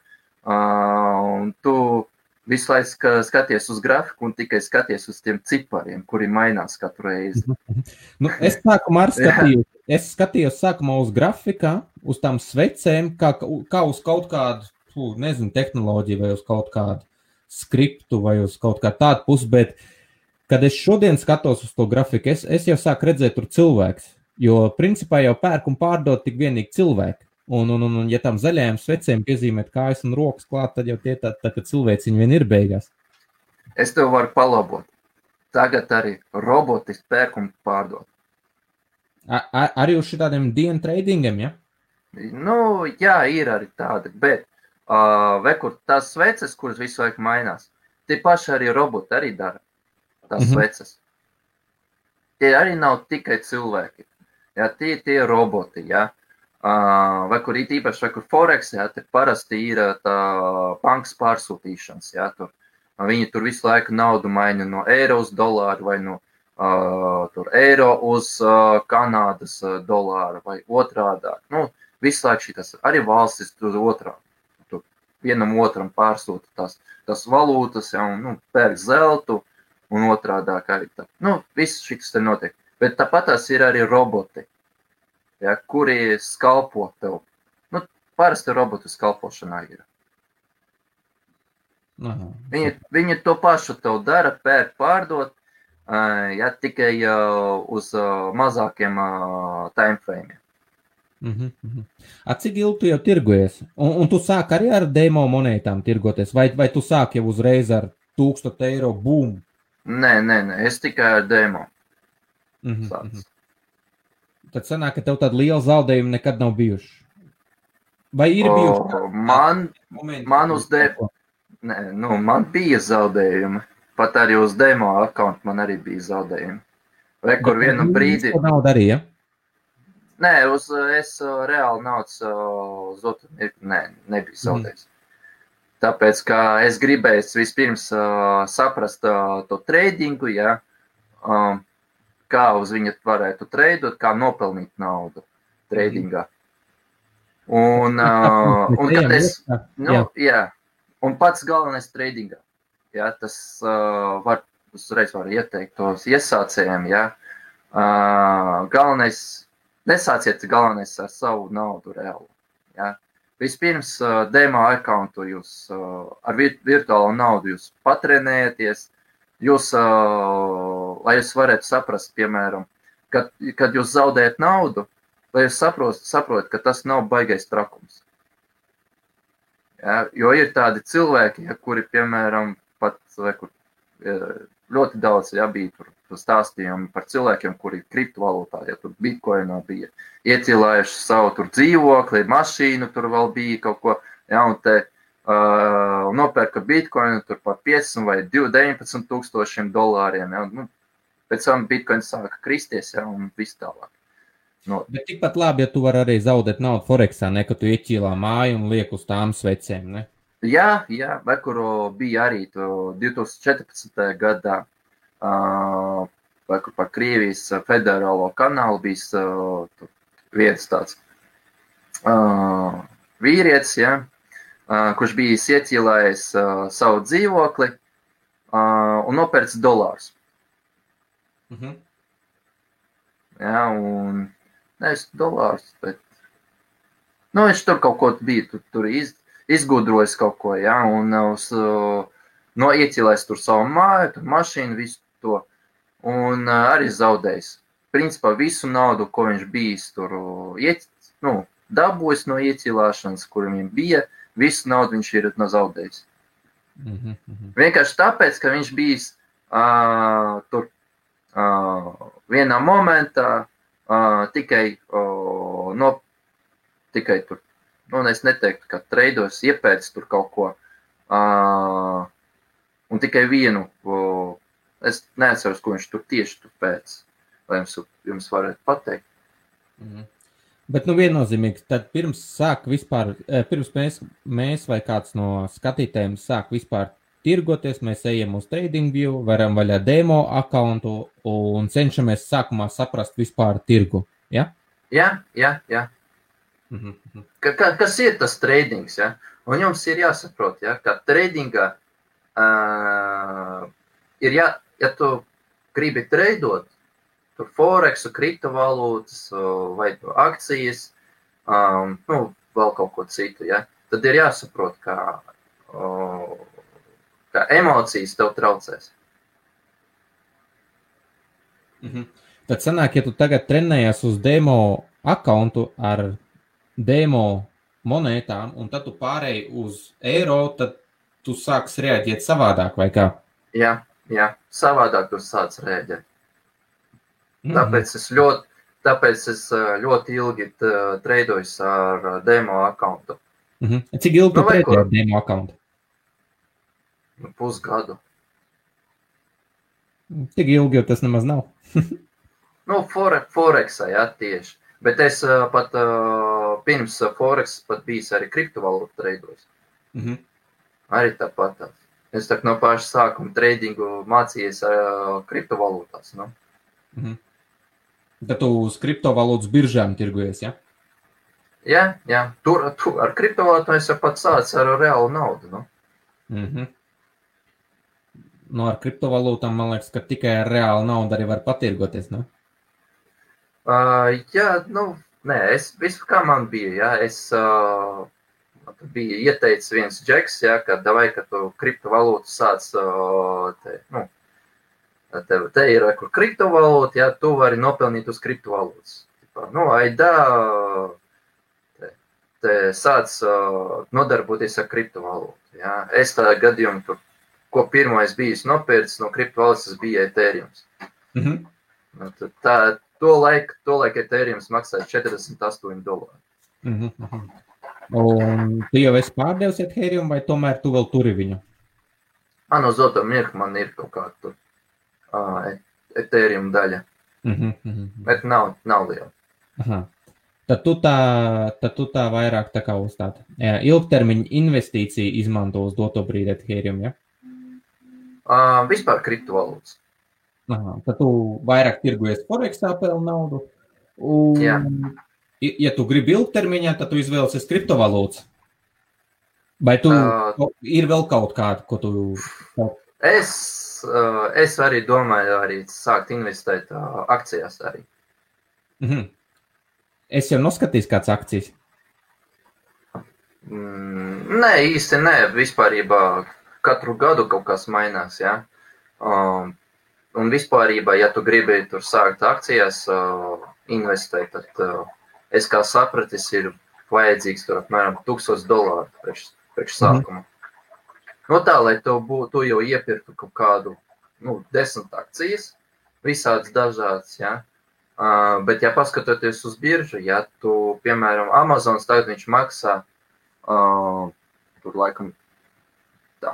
un tu visu laiku skaties uz grafiku un tikai skaties uz tiem cipariem, kuri mainās katru reizi. Nu, es sākumā skatījos sākumā uz grafikā, uz tām svecēm, kā uz kaut kādu, nezinu, tehnoloģiju vai uz kaut kādu skriptu vai uz kaut kā tādu pusi, bet kad es šodien skatos uz to grafiku, es jau sāku redzēt tur cilvēks, jo principā jau pērk un pārdod tik vienīgi cilvēki. Un ja tam zaļajām svecēm piezīmēt kājas un rokas klāt, tad jau tie tā ka cilvēciņi vien ir beigās. Es tev varu palabot. Tagad arī roboti pērk un pārdod. Arī uz šitādiem dienu tradingiem, ja? Nu, jā, ir arī tādi, bet vekur tās sveces, kuras visu laiku mainās, tie paši arī roboti arī dara tās sveces. Tie arī nav tikai cilvēki. Ja, tie roboti, ja. Vai kur it īpaši, vai kur Forex, ja, te parasti ir tā bankas pārsūtīšanas, ja, tur. Viņi tur visu laiku naudu maina no eiro uz dolāru vai no tur eiro uz Kanādas dolāru vai otrādāk. Nu, visu laiku šitas, arī valstis tur otrā. Tur vienam otram pārsūta tās valūtas, ja, un, pērk zeltu un otrādāk arī tā. Nu, viss šitas te notiek. Bet tāpat tās ir arī roboti. Ja, kuri skalpo tev. Nu, parasti robotu skalpošanā ir. Viņi to pašu tev dara, pērk, pārdot, ja, tikai uz mazākiem timeframe. Cik ilgi tu jau tirgojies? Un tu sāk arī ar demo monētām tirgoties? Vai tu sāk jau uzreiz ar 1000 eiro boom? Nē, es tikai ar demo. Tad sanāk, ka tev tāda liela zaudējuma nekad nav bijuši. Vai ir bijuši? Man uz demo, man bija zaudējumi. Pat arī uz demo account man arī bija zaudējumi. Vai kur vienu brīdi... Nauda arī, ja? Nē, es reāli naudas uz otru nebija zaudējis. Tāpēc, ka es gribēju vispirms saprast to tradingu, ja, kā uz viņu varētu treidot, kā nopelnīt naudu tradingā. Un kad es, un pats galvenais tradingā, ja, tas uzreiz var ieteikt tos iesācējiem, ja, nesāciet galvenais ar savu naudu reāli, ja. Vispirms demo accountu jūs ar virtuālo naudu jūs patrenējaties, lai jūs varētu saprast, piemēram, kad jūs zaudējat naudu, lai jūs saprotat, ka tas nav baigais trakums. Ja, jo ir tādi cilvēki, ja, kuri, piemēram, pat ļoti daudz bija tur stāstījumi par cilvēkiem, kuri kriptovalūtā, ja tur bitcoinā bija iecīlājuši savu tur dzīvokli, mašīnu, tur vēl bija kaut ko, ja, un te nopērka bitcoinu tur par 15 vai 19 tūkstošiem dolāriem, ja, nu, pēc tam bitcoin sāka kristies, ja, un viss tālāk. No. Bet tikpat labi, ja tu vari arī zaudēt naudu Forexā, ne, ka tu ieķīlā māju un liek uz tām svecēm, ne? Jā, kuru bija arī 2014. gadā, par Krievijas federālo kanālu bija viens tāds vīrietis, ja, kurš bija ieķīlājis savu dzīvokli un nopērts dolārus. Jā, un nevis dolārus, bet viņš tur kaut ko bija, tur izgudrojis kaut ko, ja, un iecīlējis tur savu māju, tur mašīnu, visu to, un arī zaudējis. Principā visu naudu, ko viņš bijis tur dabūjis no iecīlāšanas, kur viņam bija, visu naudu viņš ir zaudējis. Vienkārši tāpēc, ka viņš bijis tur vienā momentā tikai tur, es neteiktu, ka treidos iepēc tur kaut ko, un tikai vienu, es neatceros, ko viņš tur tieši tur pēc, lai jums varētu pateikt. Bet, viennozīmīgi, tad pirms mēs vai kāds no skatītājiem sāk vispār tirgoties, mēs ejam uz TradingView, varam vaļā demo accountu un cenšamies sākumā saprast vispār tirgu, ja? Jā. Kas ir tas tradings, ja? Un jums ir jāsaprot, ja, ka tradingā ja tu gribi treidot, tur Forexu, kriptovalūtas vai akcijas, vēl kaut ko citu, ja, tad ir jāsaprot, ka emocijas tev traucēs. Tad sanāk, ja tu tagad trenējies uz demo accountu ar demo monētām, un tad tu pārēji uz eiro, tad tu sāks reaģēt savādāk, vai kā? Jā, savādāk tu sāc reaģēt. Tāpēc es ļoti ilgi treidojos ar demo accountu. Cik ilgi tu treidēji ar demo accountu? Pusgadu. Tik ilgi, jo tas nemaz nav. Forexā, jā, tieši. Bet es pat pirms Forex pat bijis arī kriptovalūtu treidojos. Arī tāpat. Es tā no paša sākuma tradingu mācījies kriptovalūtās. Nu. Tad tu uz kriptovalūtas biržām tirgojies, ja? Jā. Tur ar kriptovalūtām es pat sācu ar reālu naudu. Nu. Ar kriptovalūtām, man liekas, ka tikai ar reālu naudu arī var patirgoties, ne? Nē, visu kā man bija, jā, es bija ieteicis viens džeks, jā, ka tu kriptovalūtu sāc, te ir kur kriptovalūta, jā, tu vari nopelnīt uz kriptovalūtas. Te sāc nodarboties ar kriptovalūtu, jā. Es tā gadījumu tur, ko pirmais bijis nopērts no kriptovalūtas, tas bija Ethereums. To laiku Ethereums maksāja $48. Un tu jau esi pārdevis Ethereum, vai tomēr tu vēl turi viņu? Uz doto mirkli man ir kaut kā tur Ethereum daļa. Bet nav liela. Tad tu tā vairāk tā kā uz tādu ilgtermiņa investīciju izmanto uz doto brīdi Ethereum, ja? Vispār kriptovalūtas. Tad tu vairāk tirgojies Forexā pelnu naudu. Jā. Ja tu gribi ilgtermiņā, tad tu izvēlēsies kriptovalūtas. Vai tu ir vēl kaut kādu, ko tu... Es arī domāju arī sākt investēt akcijās arī. Es jau noskatījis kāds akcijas. Nē, īsti nē. Vispārībā katru gadu kaut kas mainās, jā. Un vispārībā, ja tu gribi tur sākt akcijās investēt, tad es kā sapratis, ir vajadzīgs tur apmēram $1000 priekš sākuma. Tā, lai tu jau iepirktu kaut kādu 10 akcijas, visādas dažādas, jā. Bet, ja paskatoties uz biržu, ja tu, piemēram, Amazons tagad viņš maksā tur laikam tā.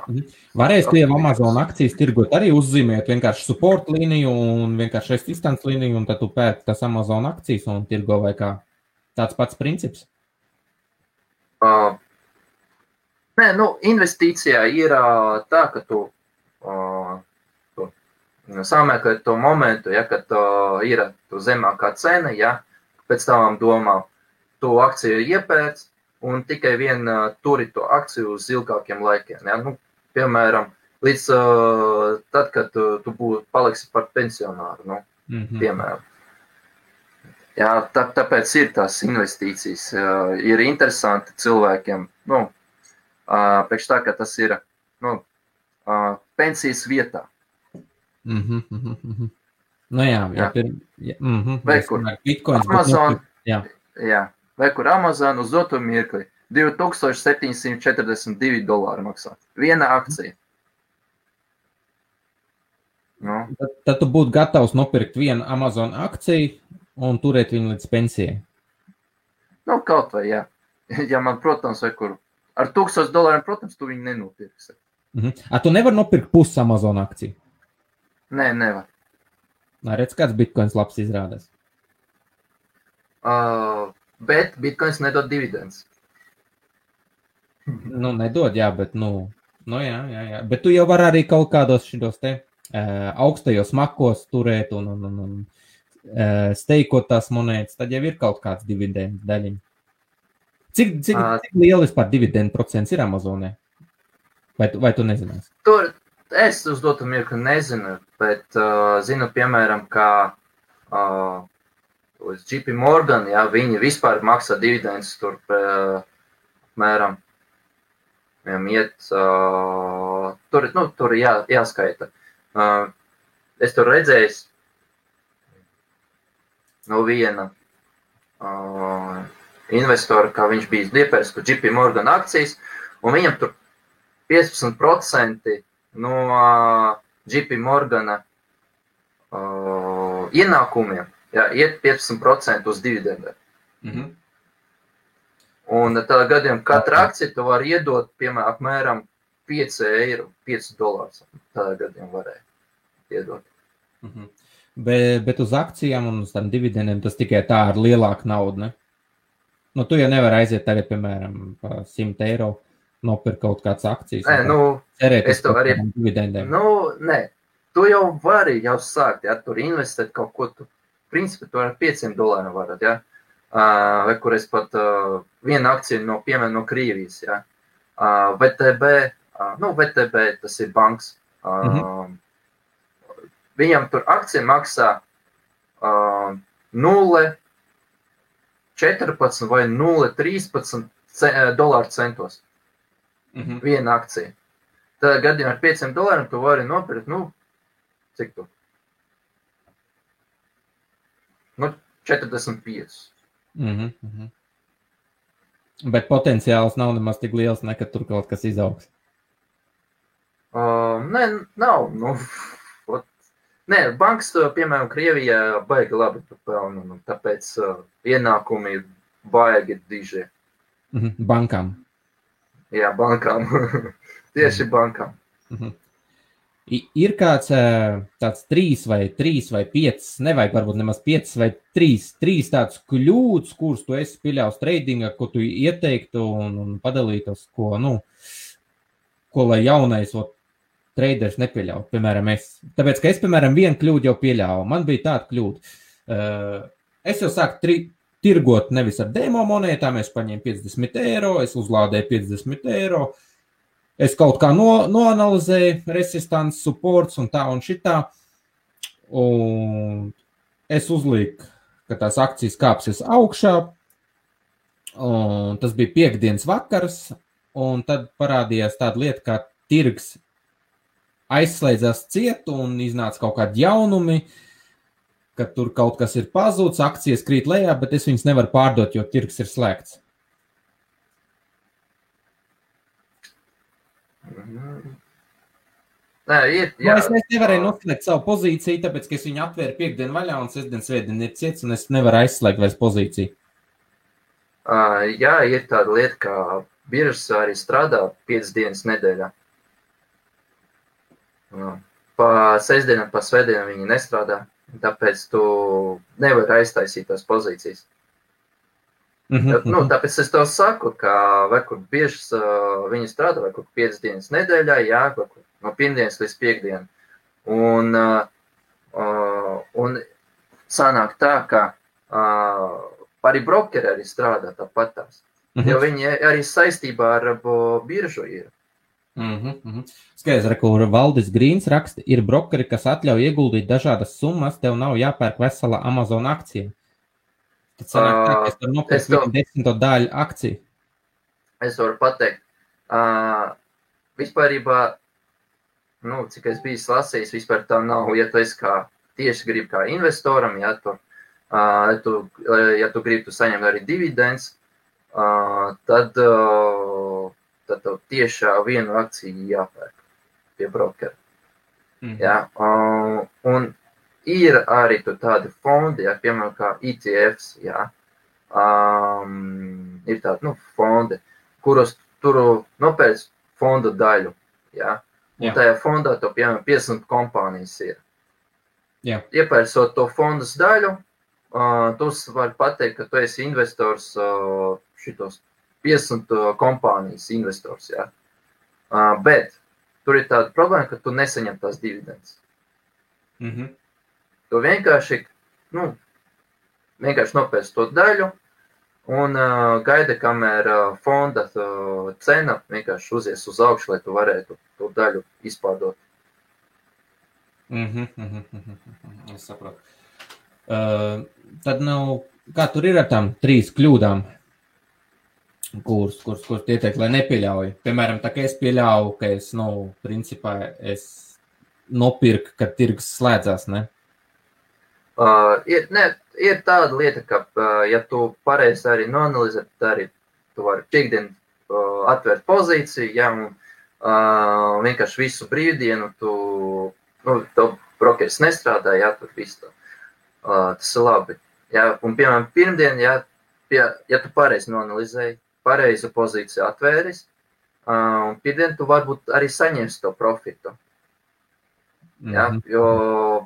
Varēs tu jau Amazon akcijas tirgot arī uzzīmēt vienkārši support līniju un vienkārši resistance līniju, un tad tu pērci tas Amazon akcijas un tirgo vai kā tāds pats princips? Nē, investīcijā ir tā, ka tu samēkot to momentu, ja, kad ir tu zemākā cena, ja, pēc tavām domām tu akciju iepērc, un tikai turi to akciju uz ilgākiem laikiem. Ja? Piemēram, līdz tad, kad tu paliksi par pensionāru, piemēram. Jā, tāpēc ir tās investīcijas. Ir interesanti cilvēkiem, priekš tā, ka tas ir pensijas vietā. Vai kur Amazon, vai kur Amazon uz doto mirkli $2742 maksā. Viena akcija. Tad tu būtu gatavs nopirkt vienu Amazon akciju un turēt viņu līdz pensijai. Kaut vai, jā. Ja man, protams, vai kur ar $1000, protams, tu viņu nenopirksi. Tu nevar nopirkt pusi Amazon akciju? Nē, nevar. Redz, kāds bitcoins labs izrādās. Bet bitcoins nedod dividends. Nedod, jā, bet, Nu, jā. Bet tu jau vari arī kaut kādos šitos te augstajos makos turēt un steikot tās monētas, tad jau ir kaut kāds dividendu daļiņa. Cik liela vispār dividendu procents ir Amazonē? Vai tu nezinās? Tur es uz dotu mirkli nezinu, bet zinu, piemēram, kā uz JP Morgan, ja, viņi vispār maksā dividendus tur, mēram, viņam iet, tur jāskaita. Es tur redzējis no viena investora, kā viņš bija iepērts par JP Morgan akcijas, un viņam tur 15% no JP Morgana ienākumiem, jā, iet 15% uz dividendiem. Mhm. Un tādā gadījumā katra akcija tu var iedot, piemēram, apmēram 5 eiro, 5 dolārus. Tādā gadījumā varēja iedot. Mhm. Bet uz akcijām un uz tām dividendiem tas tikai tā ar lielāku naudu, ne? Nu, tu jau nevar aiziet tagad, piemēram, pa 100 eiro nopirkt kaut kāds akcijas. Nē, cerēt es to arī dividendiem. Nē, tu jau vari jau sākt, ja, tur investēt kaut ko, tu, principā, tu ar 500 dolāriem varat, ja. Vai kur es pat viena akcija no, piemēram, no Krievijas, ja. VTB, tas ir banks. Viņam tur akcija maksā 0,14 vai 0,13 dolāru centos. Viena akcija. Tādā gadījumā ar 500 dolāriem tu vari nopirkt, cik tu? 45. Bet potenciāls nav nemaz tik liels, ka tur kaut kas izaugs. Nē, nav. Nē, banks, piemēram, Krievijā baigi labi pelna, tāpēc ienākumi ir baigi diži. Bankām. Jā, bankām. Tieši bankām. Ir kāds tāds 3 vai 5, nevajag varbūt nemaz 5 vai 3 tāds kļūdas, kurus tu esi pieļaus tradingā, ko tu ieteiktu un padalītos, ko lai jaunais traders nepieļauj, piemēram, es. Tāpēc, ka es, piemēram, vienu kļūdu jau pieļāvu. Man bija tāda kļūda. Es jau sāku tirgot nevis ar demo monētām, es paņēmu 50 eiro, es uzlādēju 50 eiro, es kaut kā noanalizēju resistance, supports un tā un šitā, un es uzlīku, ka tās akcijas kāpsies augšā, un tas bija piektdienas vakars, un tad parādījās tāda lieta, kā tirgs aizslēdzās ciet un iznāca kaut kādi jaunumi, ka tur kaut kas ir pazūds, akcijas krīt lejā, bet es viņas nevaru pārdot, jo tirgs ir slēgts. Nē, jā. Es nevarēju noslēgt savu pozīciju, tāpēc, ka es viņu atvēru piekdienu vaļā un sestdien svētdien ir ciets, un es nevaru aizslēgt vairs pozīciju. Jā, ir tāda lieta, kā biržas arī strādā 5 dienas nedēļā. Pa sestdienam, pa svētdienam viņi nestrādā, tāpēc tu nevari aiztaisīt tās pozīcijas. Tāpēc es tev saku, ka vai kur biržas viņi strādā, vai kur 5 dienas nedēļā, jā, vai kur no pirmdienas līdz piekdienu. Un sanāk tā, ka arī brokeri arī strādā tāpat tās, jo viņi arī saistībā ar biržu ir. Skaidrs, kur Valdis Grīns raksta, ir brokeri, kas atļauj ieguldīt dažādas summas, tev nav jāpērk vesela Amazon akcija. Tad sanāk tā, ka es tur nopirku 10 daļu akciju. Es varu pateikt, vispārībā, cik es biju lasījis, vispār tā nav, ja tu esi tieši gribi kā investoram, ja tu gribi saņemt arī dividends, tad tev tiešā vienu akciju jāpērk pie brokera. Ja? Un ir arī tādi fondi, ja, piemēram, kā ETFs, ja? Ir tādi fondi, kuros tur nopērc fonda daļu. Ja? Un tajā fondā to, piemēram, 50 kompānijas ir. Iepērcot to fondas daļu, tu vari pateikt, ka tu esi investors šitos 50 kompānijas investors, ja. Bet tur ir tāda problēma, ka tu nesaņem tās dividendes. Tu vienkārši nopērci to daļu un gaida, kamēr fonda cena vienkārši uzies uz augšu, lai tu varētu to daļu izpārdot. Es saprotu. Tad kā tur ir ar tām 3 kļūdām, kuras ieteikt, lai nepieļauj? Piemēram, tā kā es pieļauju, ka principā es nopirku, kad tirgus slēdzās, ne? Ir tāda lieta, ka, ja tu pareizi arī noanalizē, tad arī tu vari piekdien atvērt pozīciju, ja, un vienkārši visu brīvdienu to brokeris nestrādā, ja, tur viss tā. Tas ir labi. Ja, un, piemēram, pirmdien, ja tu pareizi noanalizēji, pareizu pozīciju atvēris, un pirmdien tu varbūt arī saņemsi to profitu. Ja,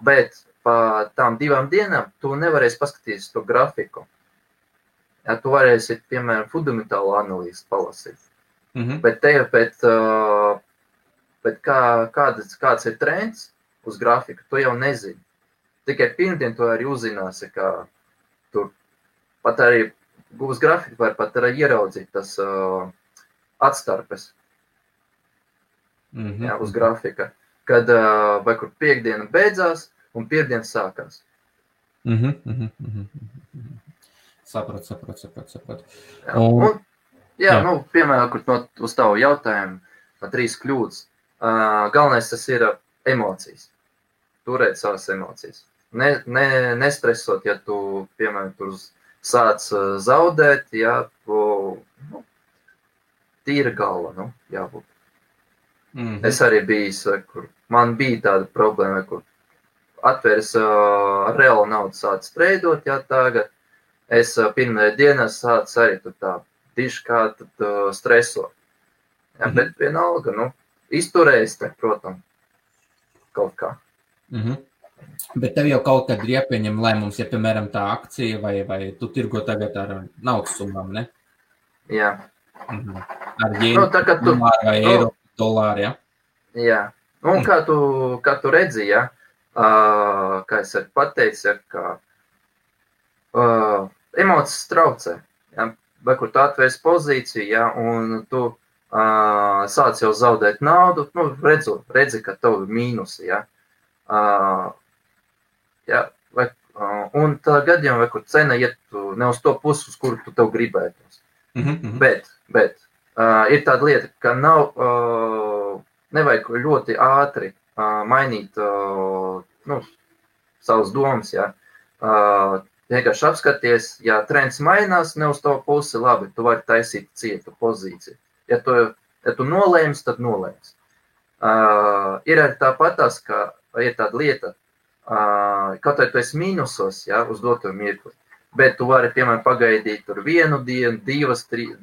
bet pa tām 2 dienām tu nevarēsi paskatīties to grafiku. Ja, tu varēsi, piemēram, fundamentālu analīzi palasīt. Bet kāds ir trends uz grafiku, tu jau nezini. Tikai pirmdien tu arī uzzināsi, ka tur pat arī uz grafiku var pat arī ieraudzīt tas atstarpes uz grafika, kad vai kur piekdiena beidzās un pirmdien sākās. Sapratu. Piemēram, uz tavu jautājumu, 3 kļūdas. Galvenais tas ir emocijas. Turēt savas emocijas. Nestresot, ja tu, piemēram, tur sāc zaudēt, ja tīra galva, jābūt. Es arī biju, kur man bija tāda problēma, kur atvērs reālu naudu sāc treidot, ja tagad es pirmajā dienā sāc arī tā diši kā stresot. Ja, bet vienalga, izturējis, protams, kaut kā. Bet tev jau kaut kad ir jāpieņem lēmums, ja, piemēram, tā akcija vai tu tirgo tagad ar naudas summām, ne? Jā. Ar jēnu, dolāru vai eiro, dolāru, ja? Jā. Un kā tu redzi, ja, kā es arī pateicu, ka emocijas traucē, ja, vai kur tu atvērs pozīciju, ja, un tu sāc jau zaudēt naudu, redzi, ka tev ir mīnusi, ja. Un tā gadījumā, vai kur cena iet ne uz to pusi, uz kuru tu tev gribētos. Bet ir tāda lieta, ka nevajag ļoti ātri mainīt savas domas. Ja. Vienkārši apskaties, ja trends mainās ne uz to pusi, labi, tu vari taisīt citu pozīciju. Ja tu nolēms, tad nolēms. Ir arī tāpatās, ka ir tāda lieta, kaut vai tu esi mīnusos, ja, uz doto mirkli, bet tu vari, piemēram, pagaidīt tur 1 dienu, 2,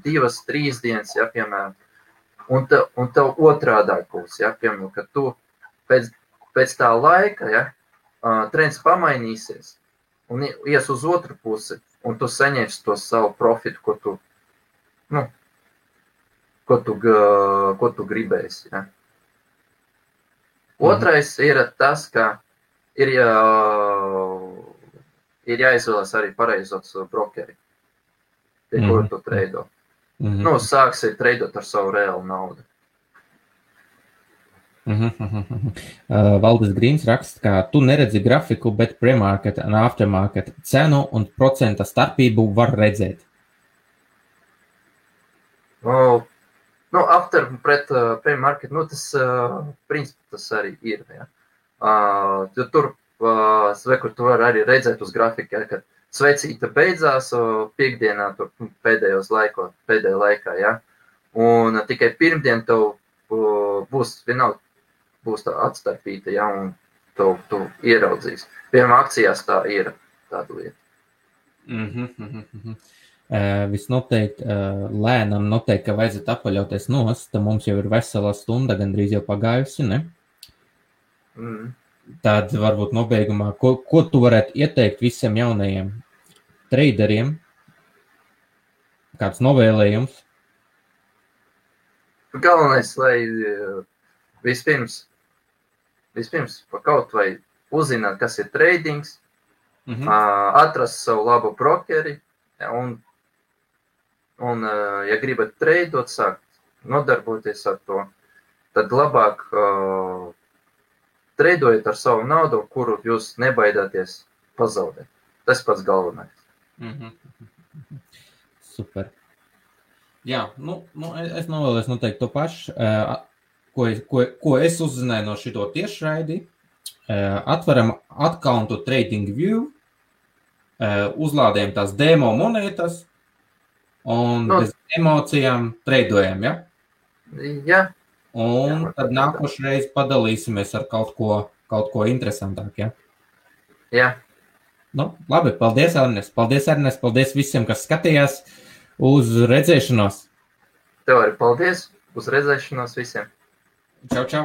3 dienas, ja, piemēram, un tev otrādāk būs, ja, piemēram, ka tu pēc tā laika, ja, trends pamainīsies un ies uz otru pusi, un tu saņemsi to savu profitu, ko tu gribēsi, ja. Otrais ir tas, ka ir jāizvēlas arī pareizos brokeri, pie kura tu treido. Sāksi treidot ar savu reālu naudu. Valdis Grīns raksta, ka tu neredzi grafiku, bet pre-market un aftermarket cenu un procenta starpību var redzēt. After pret pre-market, tas principā tas arī ir. Ja. Tur, kur tu vari arī redzēt uz grafika, ja, kad svecīta beidzās piekdienā, tur pēdējā laikā, ja. Un tikai pirmdien tev būs tā atstarpīta, ja, un tu ieraudzīs. Piemēram, akcijās tā ir tāda lieta. Visnoteikti lēnam noteikti, ka vajadzētu apaļauties nost, tad mums jau ir vesela stunda, gandrīz jau pagājusi, ne? Tad varbūt nobeigumā, ko tu varētu ieteikt visiem jaunajiem traderiem? Kāds novēlējums? galvenais, lai vispirms pa kaut vai uzzināt, kas ir tradings, atrast savu labu brokeri, un ja gribat treidot, sākt nodarboties ar to, tad labāk treidojiet ar savu naudu, kuru jūs nebaidāties pazaudēt. Tas pats galvenais. Super. Jā, es novēlēs noteikti to pašu, ko es uzzināju no šito tiešraidi. Atveram accountu TradingView, uzlādējam tās demo monētas un bez emocijām treidojam, ja? Jā. Un tad nākošreiz padalīsimies ar kaut ko interesantāk, ja? Jā. Labi, paldies, Ernest. Paldies visiem, kas skatījās. Uz redzēšanos. Tev arī paldies. Uz redzēšanos visiem. Čau, čau.